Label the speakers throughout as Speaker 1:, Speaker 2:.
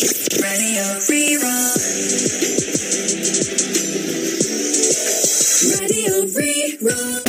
Speaker 1: Radio Rí-Rá. Radio Rí-Rá.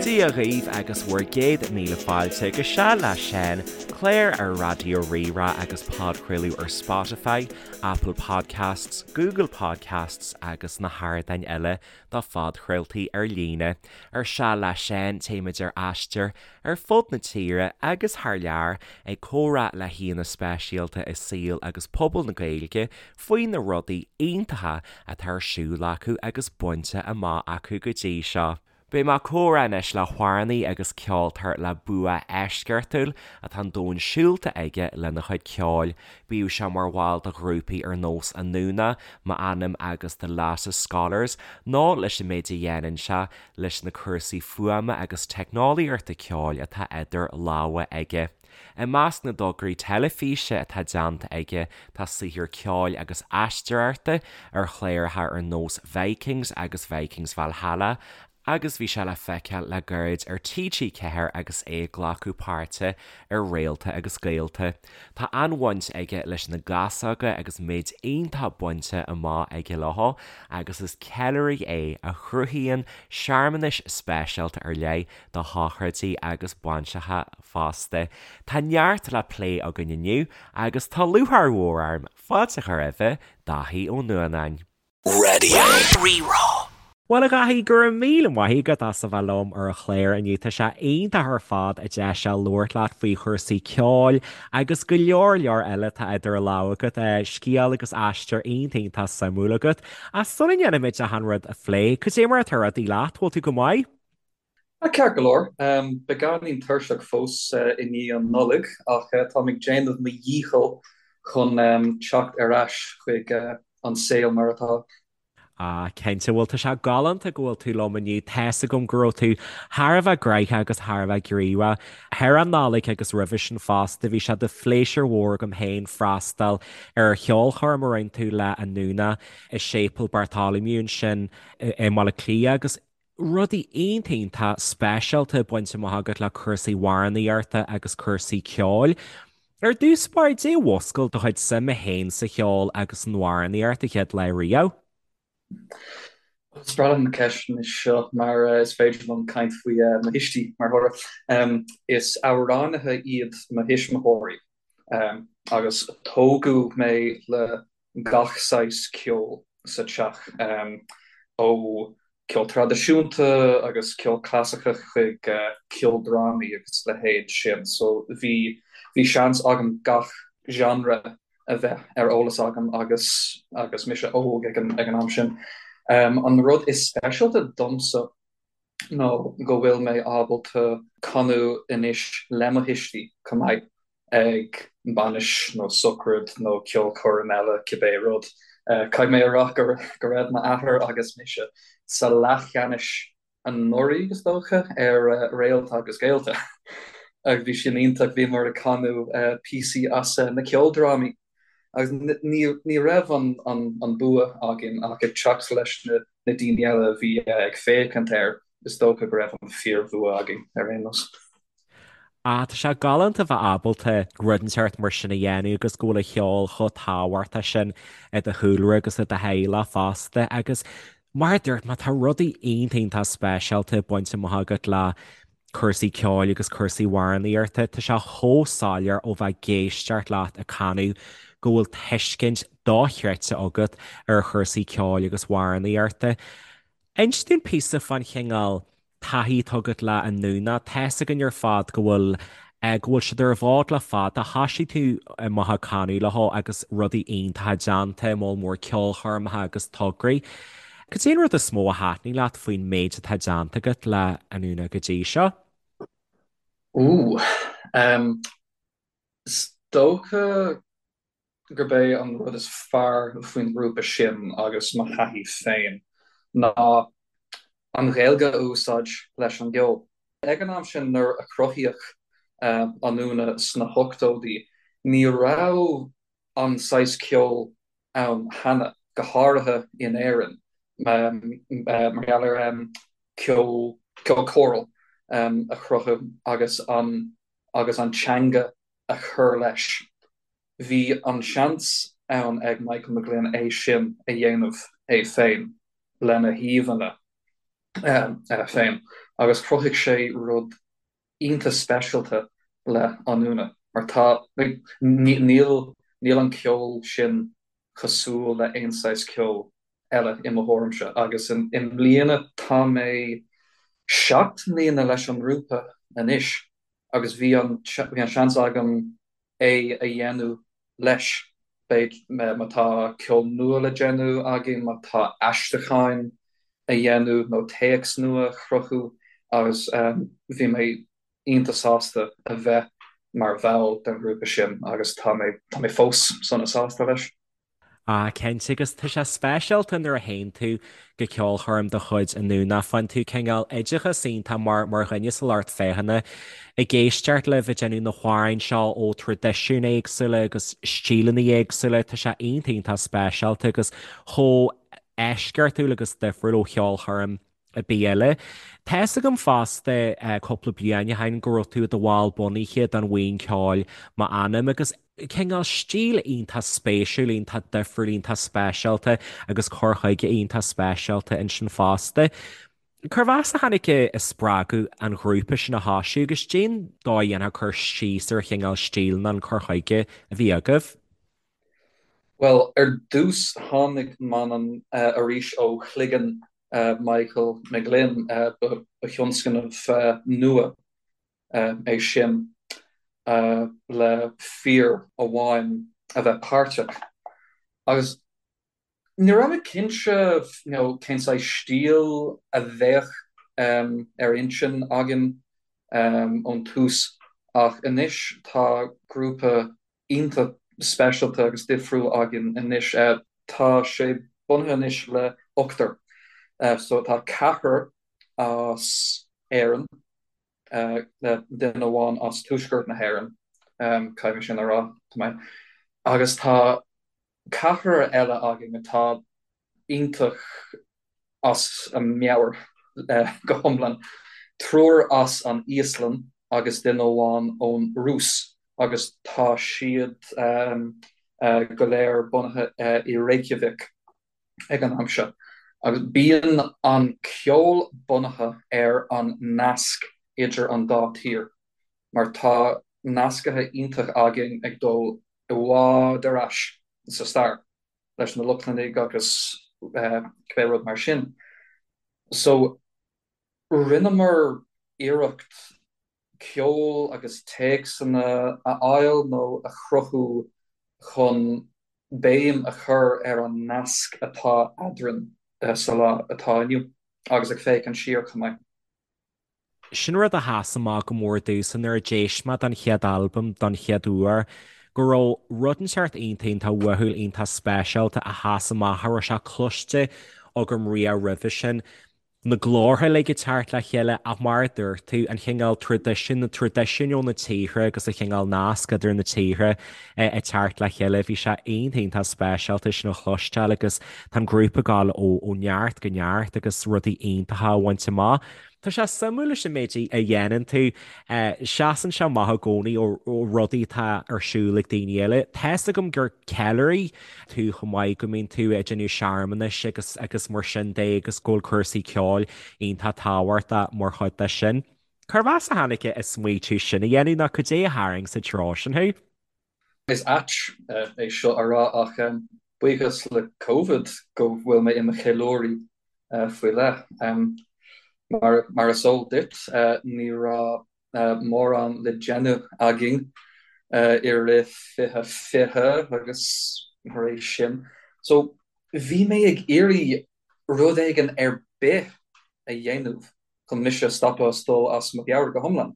Speaker 2: Dia dhaoibh agus bhur gcéad míle fáilte go Seal le Seán, clár ar Raidió Rí-Rá agus podchraoladh ar Spotify, Apple Podcasts, Google Podcasts agus na hardáin eile do phodchraoltaí ar líne. Ar Seal le Seán, téimid ar aistear ar fud na tíre agus thar lear ag comhrá le haíonna speisialta i saol agus pobal na Gaeilge faoi na rudaí iontacha atá ar siúl acu agus bainte amach acu go dtí seo. Beidh mé ag comhrá anois le hamhránaí agus ceoltóir le bua eisceachtúil atá an domhan siúlta aige lena chuid ceoil. Bíodh sé mar bhall de ghrúpaí ar nós Anúna, M'Anam agus The Lattice Scholars nó leis an méid a dhéanann sé leis na cúrsaí fuaime agus teicneolaíochta ceoil atá idir lámha aige. I measc na dtograí teilifíse atá déanta aige tá saothar ceoil agus aisteoireachta ar chláracha ar nós Vikings agus Vikings Valhalla agus bhí sé le feiceáil le gairid ar TG4 agus é ag glacadh páirte ar Réalta agus Gaolta. Tá an-bhaint aige leis na gasóga agus méid iontach bainte amach aige leo agus is ceiliúraí é a chruthaíonn searmanais speisialta ar leith do shochraidí agus bainseacha fosta. Tá neart le plé againn inniu agus tá lúcháir mhór orm fáilte a chur roimhe, Dáithí Ó Nuanáin.
Speaker 1: Radio Rí-Rá.
Speaker 2: Bhuel, a Dháithí, go raibh míle maith agat as a bheith liom ar an chlár inniu. Tá sé iontach ar fad an deis seo labhairt leat faoi chúrsaí ceoil agus go leor leor eile atá idir lámha agat. Scéal agus aistear iontach iontach suimiúil agat. Ach sula ndéanaimid achan rud a phlé, cad é mar atá rudaí leat? Bhfuil tú go maith?
Speaker 3: Ceart go leor. Beagáinín tuirseach fós i ndiaidh an Nollaig ach táim ag déanamh mo dhícheall chun teacht ar ais chuig an saol mar atá.
Speaker 2: Ah, cinnte. Bhuel, tá sé galánta go bhfuil tú liom inniu. Tá's agam go raibh tú thar a bheith gnoitheach agus thar a bheith gníomhach thar an Nollaig agus roimhe sin fosta. Bhí sé de phléisiúr mhór agam féin freastal ar cheolchoirm a rinne tú le Anúna i Séipéal Bartholomew ansin i mBaile Átha Cliath agus rudaí iontach iontach speisialta bainte amach agat le cúrsaí amhránaíochta agus cúrsaí ceoil. Ar dtús báire, caidé a mhúscail do chuid suime féin sa cheol agus san amhránaíocht an chéad lá riamh?
Speaker 3: Is breá liom na ceisteanna seo mar is féidir liom caint faoi mo thuistí mar thoradh. Is amhránaithe iad mo thuismitheoirí agus tógadh mé le gach saghas ceoil sa teach, ó ceol traidisiúnta agus ceol clasaiceach chuig ceoldrámaí agus leithéid sin. So bhí bhí seans agam gach genre a bheith ar eolas agam agus agus mise óg ag an ag an am sin. An rud is speisialta domsa nó go bhfuil mé ábalta canadh anois le mo thuistí chomh maith ag bainis nó socraid nó ceolchoirm eile, cibé rud. Caithfidh mé a rá go raibh m'athair agus mise sa leathcheannais anuraidh, is dócha, ar Réalta agus Gaolta agus bhí sin iontach, bhíomar ag canadh píosaí as na ceoldrámaí agus ní raibh an bua againn ach ag teacht leis na daoine eile a bhí ag féachaint air, is dócha go raibh an fíorbhua againn ar aon nós.
Speaker 2: Ah, tá sé galánta bheith ábalta rud inteacht mar sin a dhéanamh agus go bhfuil an cheol chomh tábhachtach sin i do chúlra agus i do theaghlach fosta agus mar a dúirt mé tá rudaí iontach iontach speisialta bainte amach agat le cúrsaí ceoil agus cúrsaí amhránaíochta. Tá sé chomh soiléir ó bheith ag éisteacht leat ag canadh go bhfuil tuiscint dochreidte agat ar chúrsaí ceoil agus amhránaíochta. Inis dúinn píosa fán chineál taithí atá agat le Anúna. Tá's againn ar fad go bhfuil go bhfuil siad ar an bhfód le fada. Thoisigh tú amach ag canadh leo agus rudaí iontacha déanta, moll mór ceolchoirmeacha agus tograí. Cad é an rud is mó a thaitnigh leat faoin méid atá déanta agat le Anúna go dtí seo?
Speaker 3: Ooh, is dócha gurb é an rud is fearr faoin ngrúpa sin agus mo thaithí féin ná an Ghaeilge a úsáid leis an gceol. Ag an am sin nuair a cruthaíodh Anúna sna hochtóidí ní raibh an saghas ceoil ann cheana, go háirithe in Éirinn. Mar gheall ar ceol, ceol choral a chruthú agus an agus an teanga a chur leis. Bhí an seans ann ag Michael McGlynn é sin a dhéanamh é féin lena híomhánna féin agus chruthaigh sé rud iontach speisialta le Anúna mar tá, níl, níl an ceol sin cosúil le aon saghas ceoil eile i mo thuairimse agus i mbliana tá mé 7 mbliana leis an ngrúpa anois agus bhí an, bhí an seans agam é a dhéanamh leis, b'fhéidir má tá ceol nua le déanamh againn, má tá aistriúcháin a dhéanamh nó téacs nua a chruthú agus bhí mé iontach sásta a bheith mar bhall den ghrúpa sin agus tá mé, tá mé fós sona sásta leis.
Speaker 2: Ah, cinnte, agus tá sé speisialta nuair a théann tú go ceolchoirm de chuid Anúna, faigheann tú cineál oideachas iontach mar mar dhuine sa lucht féachana ag éisteacht libh ag déanamh na hamhráin seo ó traidisiúin éagsúla agus stíleanna éagsúla, tá sé iontach iontach speisialta agus chomh eisceachtúil agus difriúil ó cheolchoirm ar bith eile. Tá fhios agam fosta cúpla bliain ó shin go raibh tú i do bhall bunaithe den bhuíon ceoil M'Anam agus cineál stíl iontach spéisiúil, iontach difriúil, iontach speisialta agus cur chuige iontach speisialta ansin fosta. Cérbh as a tháinig an spreagadh an ghrúpa sin a thosú agus cén dóigh a ndéanfá cur síos ar chineál stíl nó an cur chuige a bhí agaibh?
Speaker 3: Bhuel, ar dtús tháinig M'Anam arís ó chloigeann Michael McGlynn, ba thionscnamh nua é sin le fear amháin a bheith páirteach. Agus Ní raibh mé cinnte you know cén saghas stíl a bheadh ar intinn againn ón tús ach anois tá grúpa iontach speisialta agus difriúil againn anois. Tá sé bunaithe anois le ochtar so tá ceathrar as Éirinn, duine amháin as Tuaisceart na hÉireann, caithfidh mé sin a rá, tá mé, agus tá ceathrar eile againn atá iontach as a meabhair go hiomlán, triúr as an Íoslainn agus duine amháin ón Rúis agus tá siad go léir bunaithe i Reykjavik ag an am seo. Agus bíonn an ceol bunaithe ar an nasc idir an dá tír mar tá nascaithe iontach againn ag dul i bhfad ar ais sa stair leis na Lochlannaigh agus cibé rud mar sin. So, rinneamar iarracht ceol agus téacsanna a fháil nó a chruthú chun béim a chur ar an nasc atá eadrainn sa lá atá inniu agus ag féachaint siar chomh maith.
Speaker 2: Sin rud a sheas amach go mór domhsa nuair a d'éist mé don chéad albam don chéad uair, go raibh rud inteacht iontach iontach uathúil iontach speisialta a sheas amach cha raibh sé cloiste agam riamh roimhe sin. Na glórtha uilig ag teacht le chéile ach mar a dúirt tú, an chineál traidisiún, na traidisiúin ó na tíortha agus an chineál nasc idir na tíortha ag teacht le chéile, bhí sé iontach iontach speisialta sin a chloisteáil agus tá an grúpa ag gabháil ó neart go neart agus rudaí iontacha á bhaint amach. Tá sé suimiúil leis an méid a dhéanann tú. Seasann sé amach i gcónaí ó rudaí atá ar siúl ag daoine eile. Tá fhios agam gur ceiliúraí tú chomh maith, go mbíonn tú ag déanamh searmanais agus agus mar sin de agus go bhfuil cúrsaí ceoil iontach tábhachtach mar chuid de sin. Cérbh as a tháinig an smaoitiú sin a dhéanamh nó cad é a tharraing sa treo sin thú?
Speaker 3: Is ait é seo a rá ach buíochas le Covid go bhfuil mé i mo cheiliúraí faoi leith. Mar is eol duit, ní raibh mórán le déanamh againn i rith 2020 agus tar éis sin. So bhí mé ag iarraidh rud éigin ar bith a dhéanamh chun mise a stopadh as dul as mo mheabhair go hiomlán.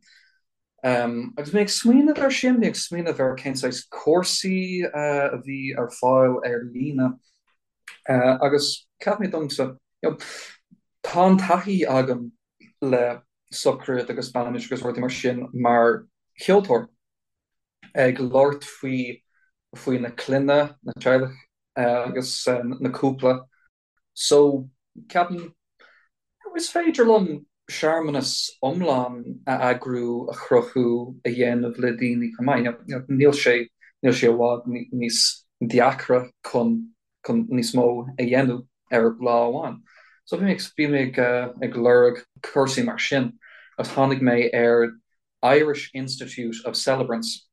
Speaker 3: Agus mé ag smaoineamh air sin, mé ag smaoineamh ar cén saghas cúrsaí a bhí ar fáil ar líne agus cheap mé domsa, you know, tá an taithí agam le sochraid agus bainis agus rudaí mar sin mar cheoltóir, ag labhairt faoi faoi na clainne, na teaghlaigh agus na cúpla. So. Ceapaim is féidir liom searmanas iomlán a eagrú, a chruthú, a dhéanamh le daoine chomh maith. Níl sé níl sé i bhfad níos deacra chun chun níos mó a dhéanamh ar lá amháin. So bhí mé bhí mé ag ag lorg cúrsaí mar sin agus tháinig mé ar Irish Institute of Celebrants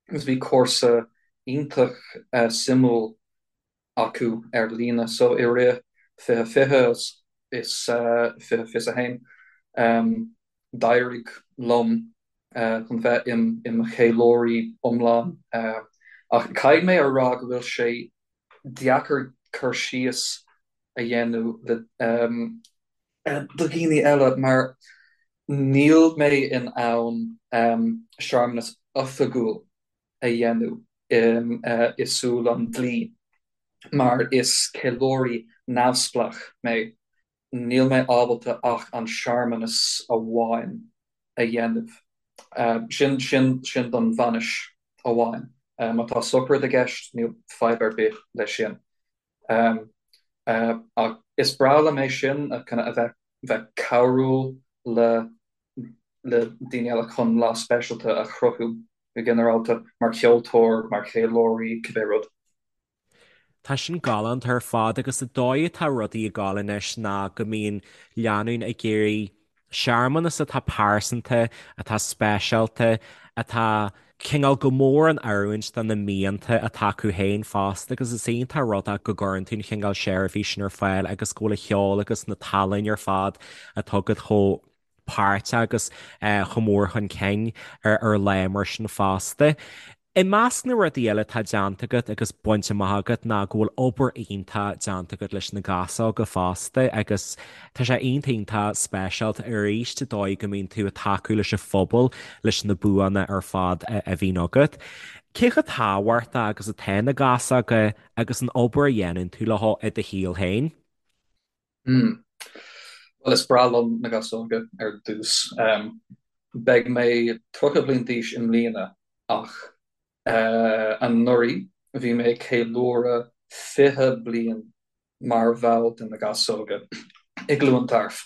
Speaker 3: agus bhí cúrsa iontach suimiúil acu ar líne. So i rith 2020 is 2021 d'éirigh liom chun bheith i mo cheiliúraí iomlán. Ach caithfidh mé a rá go bhfuil sé deacair cur síos a dhéanamh le do dhaoine eile mar níl mé in ann searmanas oifigiúil a dhéanamh i súil an dlí mar is ceiliúraí neamhspleách mé. Níl mé ábalta ach an searmanas amháin a dhéanamh. Sin, sin, sin don bhainis amháin. Má tá sochraid i gceist, níl fadhb ar bith leis sin. Ach is breá liom é sin, a bheith, bheith cabhrúil le le daoine eile chun lá speisialta a chruthú go ginearálta, mar cheoltóir, mar cheiliúraí, cibé rud.
Speaker 2: Tá sin galánta ar fad agus an dóigh atá rudaí ag gabháil anois ná go mbíonn lánúin ag iarraidh searmanas atá pearsanta, atá speisialta, atá cineál go mór in oiriúint do na mianta atá acu féin fosta agus is iontach an rud é go gcuireann tú an chineál seirbhís sin ar fáil agus go bhfuil an cheol agus na tallann ar fad atá agat chomh páirteach agus chomh mór chun cinn ar lá mar sin fosta. I measc na rudaí eile atá déanta agat agus bainte amach agat ná go bhfuil obair iontach déanta agat leis na gasóga fosta agus tá sé iontach iontach speisialta arís an dóigh go mbíonn tú ag tacú leis an phobal leis na buanna ar fad a bhíonn agat. Cé chomh tábhachtach agus atá na gasóga agus an obair a dhéanann tú leo i do shaol féin?
Speaker 3: Hmm. Bhuel, is breá liom na gasóga ar dtús. Beidh mé 30 bliain d'aois i mbliana ach anuraidh bhí mé ag ceiliúradh 20 bliain mar bhall de na gasóga i gCluain Tarbh.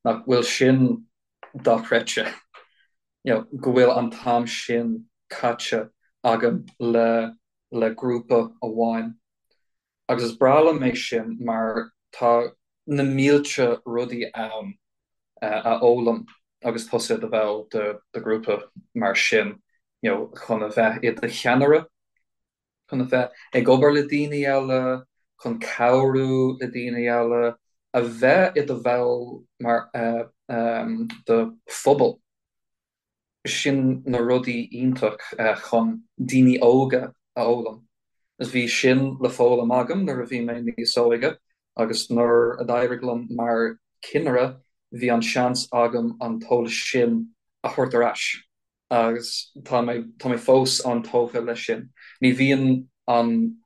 Speaker 3: Nach bhfuil sin dochreidte? You know, go bhfuil an t-am sin caite agam le le grúpa amháin. Agus is breá liom é sin mar tá na mílte rudaí ann a fhoghlaim agus tusa i do bhall de ghrúpa mar sin, you know, chun a bheith i do cheannaire, chun a bheith ag obair le daoine eile, chun cabhrú le daoine eile, a bheith i do bhall mar de phobal. Sin na rudaí iontach chun daoine óga a fhoghlaim. Agus bhí sin le foghlaim agam nuair a bhí mé níos óige agus nuair a d'éirigh liom mar chinnire bhí an seans agam an t-eolas sin a thabhairt ar ais agus tá mé tá mé fós an-tógtha leis sin. Ní bhíonn an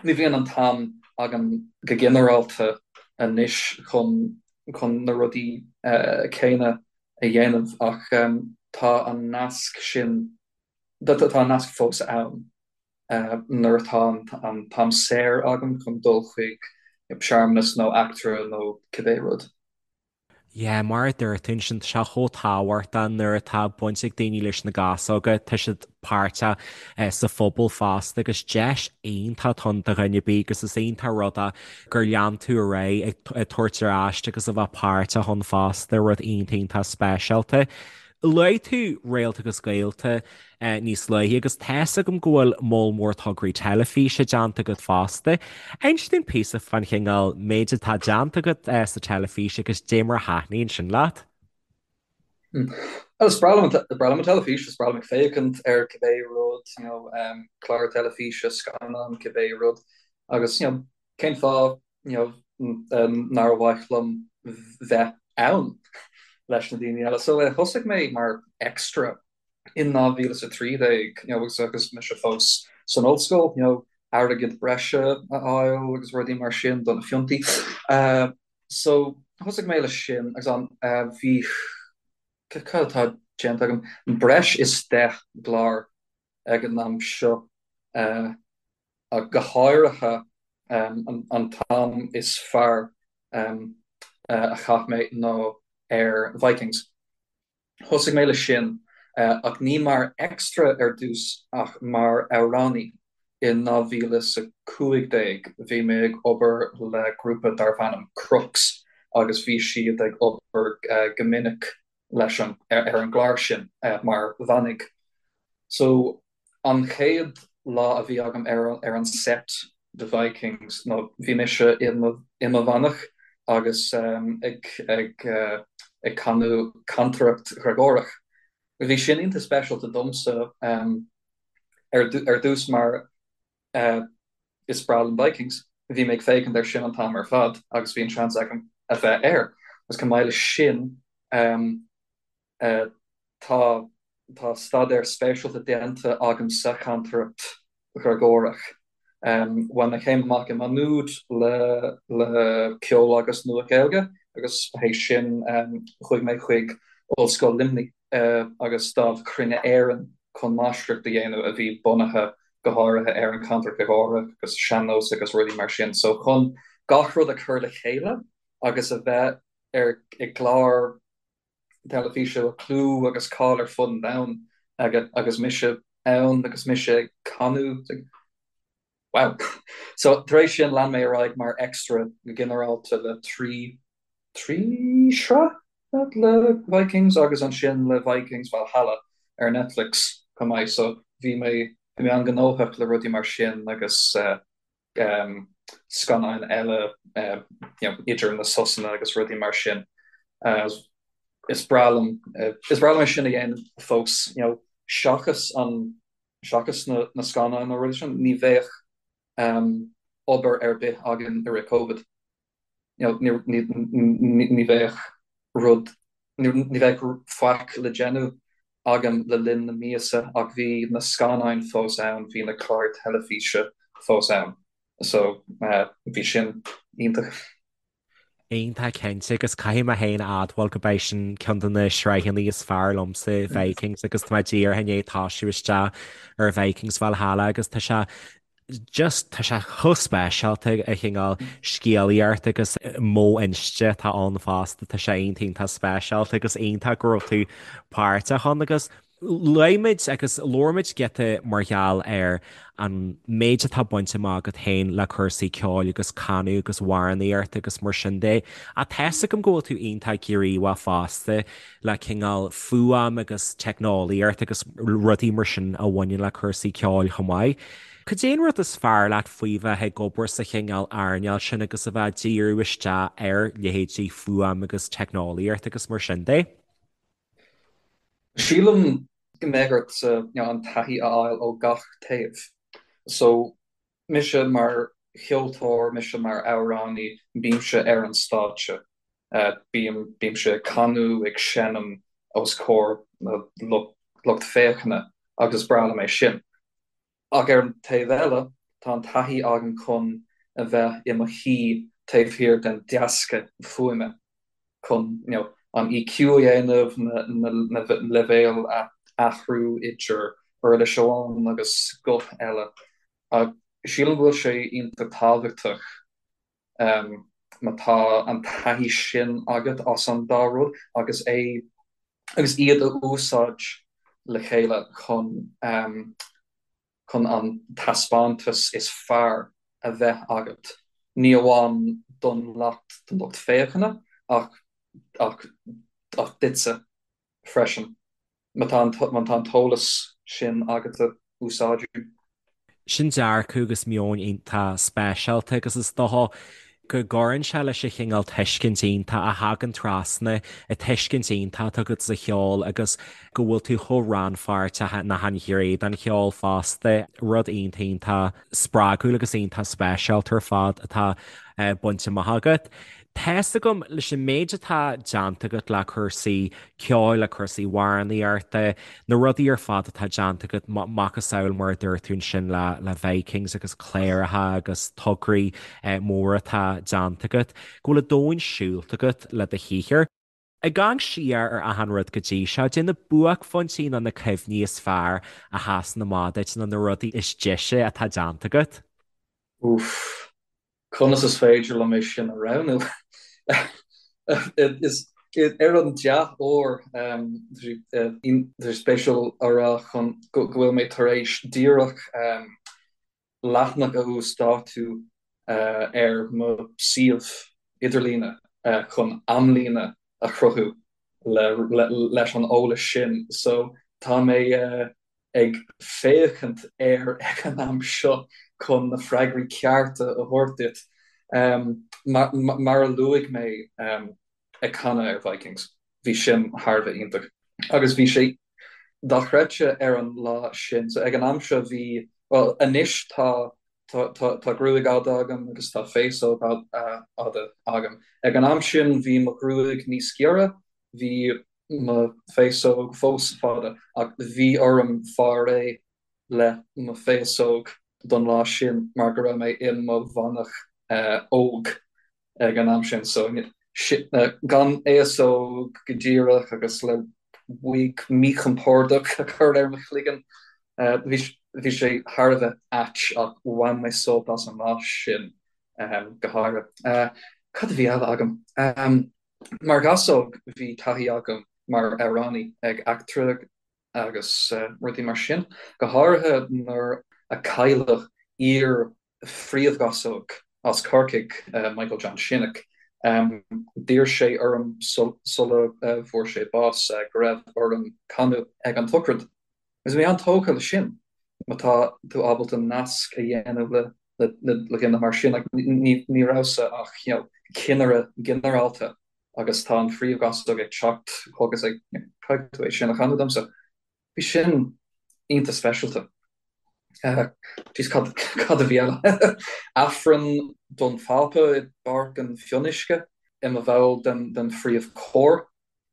Speaker 3: Ní bhíonn an t-am agam go ginearálta anois chun chun na rudaí céanna a dhéanamh ach tá an nasc sin, tá an nasc fós ann nuair atá an t-am saor agam chun dul chuig searmanas nó eachtra nó cibé rud.
Speaker 2: Yeah, mar a dúirt tú ansin, tá sé chomh tábhachtach nuair atá baint ag daoine leis na gasóga, tá siad páirteach sa phobal fosta agus deis iontach atá ann do dhuine ar bith agus is iontach an rud é gur lean tú ar aghaidh ag tabhairt ar ais agus a bheith páirteach ann fosta, rud iontach iontach speisialta. Luaigh tú Réalta agus Gaolta níos luaithe agus tá's agam go bhfuil moll mór tograí teilifíse déanta agat fosta. Inis dúinn píosa fán chineál méid atá déanta agat sa teilifís agus dé mar a thaitníonn sin leat.
Speaker 3: Bhuel, is breá liom an teilifís, is breá liom ag féachaint ar cibé rud, you know, clár teilifíse, scannán, cibé rud agus, you know, cén fáth you know, nár mhaith liom bheith ann leis na daoine eile. So thosaigh mé mar extra in 2013, you know, agus agus mise fós san ollscoil, you know, airgead breise a fháil agus rudaí mar sin do na fiontaí. So thosaigh mé leis sin agus an bhí cad atá déanta agam breis is 10 gclár ag an am seo. Ach go háirithe an t-am is fearr. a chaith mé ná ar Vikings. Thosaigh mé leis sin, ach ní mar extra ar dtús ach mar amhránaí. In 2015 bhí mé ag obair le grúpa darbh ainm Crux agus bhí siad ag obair go minic leis an ar an gclár sin mar mhanaigh. So An chéad lá a bhí agam ar an set de Vikings ná bhí mise i mo mhanach agus ag ag canadh cantaireacht Ghreagórach. Bhí sin iontach speisialta domsa ar dtús mar is breá liom Vikings. Bhí mé ag féachaint air sin an t-am ar fad agus bhí an seans agam a bheith air. Agus chomh maith leis sin Tá tá staidéar speisialta déanta agam sa chantaireacht Ghreagórach. Bhain mé céim amach i Maigh Nuad le le ceol agus Nua-Ghaeilge agus théis sin chuaigh mé chuig Ollscoil Luimnigh agus Dámh Chruinne Éireann chun máistreacht a dhéanamh a bhí bunaithe go háirithe ar an chantaireacht Ghreagórach agus sean-nós agus rudaí mar sin. So chun gach rud a chur le chéile agus a bheith ar i gclár teilifíse a bhfuil clú agus cáil ar fud an domhain aige agus mise ann agus mise ag canadh. Wow! So tar éis sin lean mé ar aghaidh mar extra go ginearálta le 3 3 shraith le Vikings agus ansin le Vikings Valhalla ar Netflix chomh maith. So bhí mé bhí mé an-ghnóthach le rudaí mar sin agus eh, scannáin eile idir na sosanna agus rudaí mar sin. Is breá liom is breá liom é sin a dhéanamh fós, you know, seachas an seachas na na scannáin nó rudaí sin, ní bheadh obair ar bith againn i rith Covid. You know, ní ní ní bheadh rud ní bheadh faic le déanamh agam le linn na míosa ach bhí na scannáin fós ann, bhí na cláir teilifíse fós ann. So bhí sin iontach.
Speaker 2: Iontach cinnte agus caithfidh mé féin a admháil go b'é sin ceann de na sraitheanna is fearr liomsa, Vikings, agus tá mé díreach i ndiaidh tosú isteach ar Vikings Valhalla agus tá sé just tá sé chomh speisialta an cineál scéalaíocht agus modh inste atá ann fosta, tá sé iontach iontach speisialta agus iontach go raibh tú páirteach ann agus luaigh muid agus labhair muid giota mar gheall ar an méid atá bainte amach agat féin le cúrsaí ceoil agus canadh agus amhránaíocht agus mar sin de. Ach tá's agam go bhfuil tú iontach gníomhach fosta le cineál fuaim agus teicneolaíocht agus rudaí mar sin a bhaineann le cúrsaí ceoil chomh maith. Cad é an rud is fearr leat faoi bheith ag obair sa chineál earnáil sin agus a bheith ag díriú isteach ar leithéidí fuaim agus teicneolaíocht agus mar sin de?
Speaker 3: Sílim go mbeadh ort an taithí a fháil ó gach taobh. So, mise mar cheoltóir, mise mar amhránaí, bímse ar an stáitse. Bím, bímse ag canadh, ag seinm os comhair na lucht féachana agus is breá liom é sin. Ach ar an taobh eile, tá an taithí agam chun a bheith i mo shuí taobh thiar den deasca fuaime, chun you know an EQ a dhéanamh, na na leibhéil a athrú idir uirlis amháin agus guth eile. Ach sílim go bhfuil sé iontach tábhachtach má tá an taithí sin agat as an dá rud agus é agus iad a úsáid le chéile chun chun an taispeántas is fearr a bheith agat, ní amháin don lucht don lucht féachana ach ach ach duitse freisin. Má tá má tá an t-eolas sin agat a úsáid.
Speaker 2: Sin dearcadh agus meon iontach speisialta agus is dócha go gcuireann sé leis an chineál tuiscint iontach a thagann trasna, an tuiscint iontach atá agat sa cheol agus go bhfuil tú chomh rannpháirteach in achan ghné den cheol fosta, rud iontach iontach spreagúil agus iontach speisialta ar fad atá bainte amach agat. Tá's agam, leis an méid atá déanta agat le cúrsaí ceoil, le cúrsaí amhránaíochta, na rudaí ar fad atá déanta agat, macasamhail mar a dúirt tú ansin le le Vikings agus cláracha agus tograí móra atá déanta agat, go bhfuil an domhan siúlta agat le do shaothar. Ag amharc siar ar achan rud go dtí seo, cad é na buaicphointí nó na cuimhní is fearr a sheasann amach duit nó na rudaí is deise atá déanta agat?
Speaker 3: Úff. Conas is féidir liom é sin a roghnú? Is ar an dea-uair, tá sé spéisiúil a rá chun go bhfuil mé tar éis díreach leathanach a uasdátú ar mo suíomh idirlíne chun amlíne a chruthú leis an eolas sin. So tá mé ag féachaint air ag an am seo chun na freagraí cearta a thabhairt duit. Mar a luaigh mé ag canadh ar Vikings, bhí sin thar a bheith iontach. Agus bhí sé dochreidte ar an lá sin. So ag an am seo bhí, bhuel anois tá tá gruaig fhada agam agus tá féasóg fhada agam. Ag an am sin bhí mo ghruaig níos giorra, bhí mo féasóg fós fada ach bhí orm fáil réidh le mo féasóg don lá sin mar go raibh mé i mo mhanach óg ag an am sin so gan fhéasóg go díreach agus le wig míchompordach a chur ar mo chloigeann. Bhí sé thar a bheith ait ach bhain mé sult as an lá sin go háirithe. Cad a bhí eile agam? Mar ghasóg bhí taithí agam mar amhránaí ag eachtra agus rudaí mar sin, go háirithe nuair a cailleadh iar-phríomhghasóg as Corcaigh, Michael John Shinnick. D'iarr sé orm sula bhfuair sé bás go raibh orm canadh ag an tsochraid. Agus bhí mé an-tógtha le sin, má tá tú ábalta nasc a dhéanamh le le dhuine mar sin. Ní rabhas-sa ach you know cinnire ginearálta agus tá an phríomhghasóg ag teacht chugat ag caithfidh tú é sin a chanadh domsa. Bhí sin iontach speisialta. Jeez cad cad a bhí eile? Aifreann don Phápa i bPáirc an Fhionnuisce i mo bhall den den phríomhchór.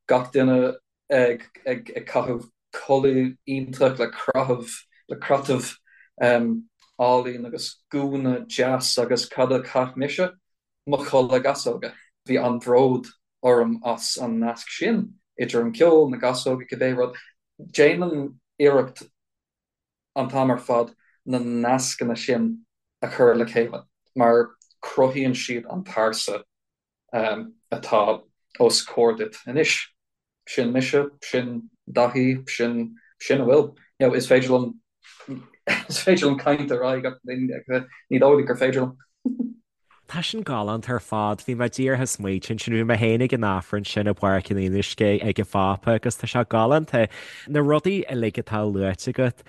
Speaker 3: Gach duine ag ag ag caitheamh culaith iontach le craitheamh le craitheamh álainn agus gúna deas agus cad a chaith mise? Mo chulaith gasóga. Bhí an-bhród orm as an nasc sin idir an ceol, na gasóga, cibé rud. Déanaim iarracht an t-am ar fad na nascanna sin a chur le chéile mar cruthaíonn siad an pearsa atá os comhair duit anois. Sin mise, sin Daithí, sin sin a bhfuil. You know, is féidir liom is féidir liom caint ar aghaidh ach ní dóigh gur féidir liom.
Speaker 2: Tá sin galánta ar fad. Bhí mé díreach ag smaointiú ansin, bhí mé féin ag an Aifreann sin i bPáirc an Fhionnuisce ag an Phápa agus tá sé galánta. Na rudaí uilig atá luaite agat,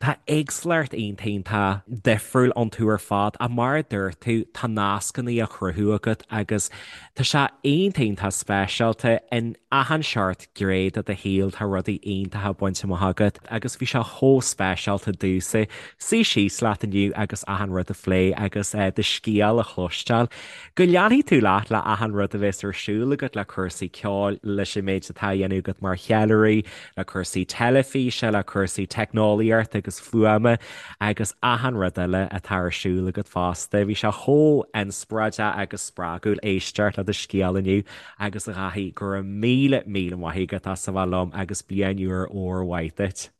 Speaker 2: Tá éagsúlacht iontach iontach difriúil iontu ar fad ach mar a dúirt tú, tá nascanna á chruthú agat agus tá sé iontach iontach speisialta. In achan seort gné de do shaol tá rudaí iontacha bainte amach agat agus bhí sé chomh speisialta domhsa suí síos leat inniu agus achan rud a phlé agus do scéal a chloisteáil. Go leanfaidh tú leat le achan rud a bheas ar siúl agat le cúrsaí ceoil, leis an méid atá á dhéanamh agat mar cheiliúraí, le cúrsaí teilifíse, le cúrsaí teicneolaíochta agus fuaime agus achan rud eile atá ar siúl agat fosta. Bhí sé chomh inspioráideach agus spreagúil éisteacht le do scéal inniu agus a Dhaithí, go raibh míle míle maith agat as a bheith liom agus bliain úr úr mhaith duit.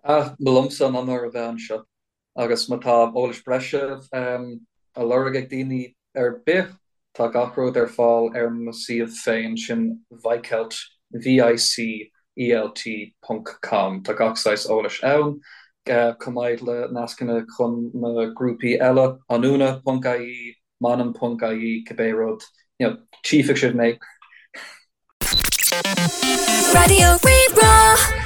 Speaker 3: Ah, ba liomsa an onóir a bheith anseo. Agus má tá eolas breise á lorg ag daoine ar bith, tá gach rud ar fáil ar mo suíomh féin, sin Vicelt, V-I-C-E-L-T, ponc com. Tá gach saghas eolais ann, chomh maith le nascanna chun na grúpaí eile, anúna ponc ie, m'ainm ponc ie, cibé rud, you know, tchífidh sibh mé.
Speaker 1: Raidió Rí-Rá.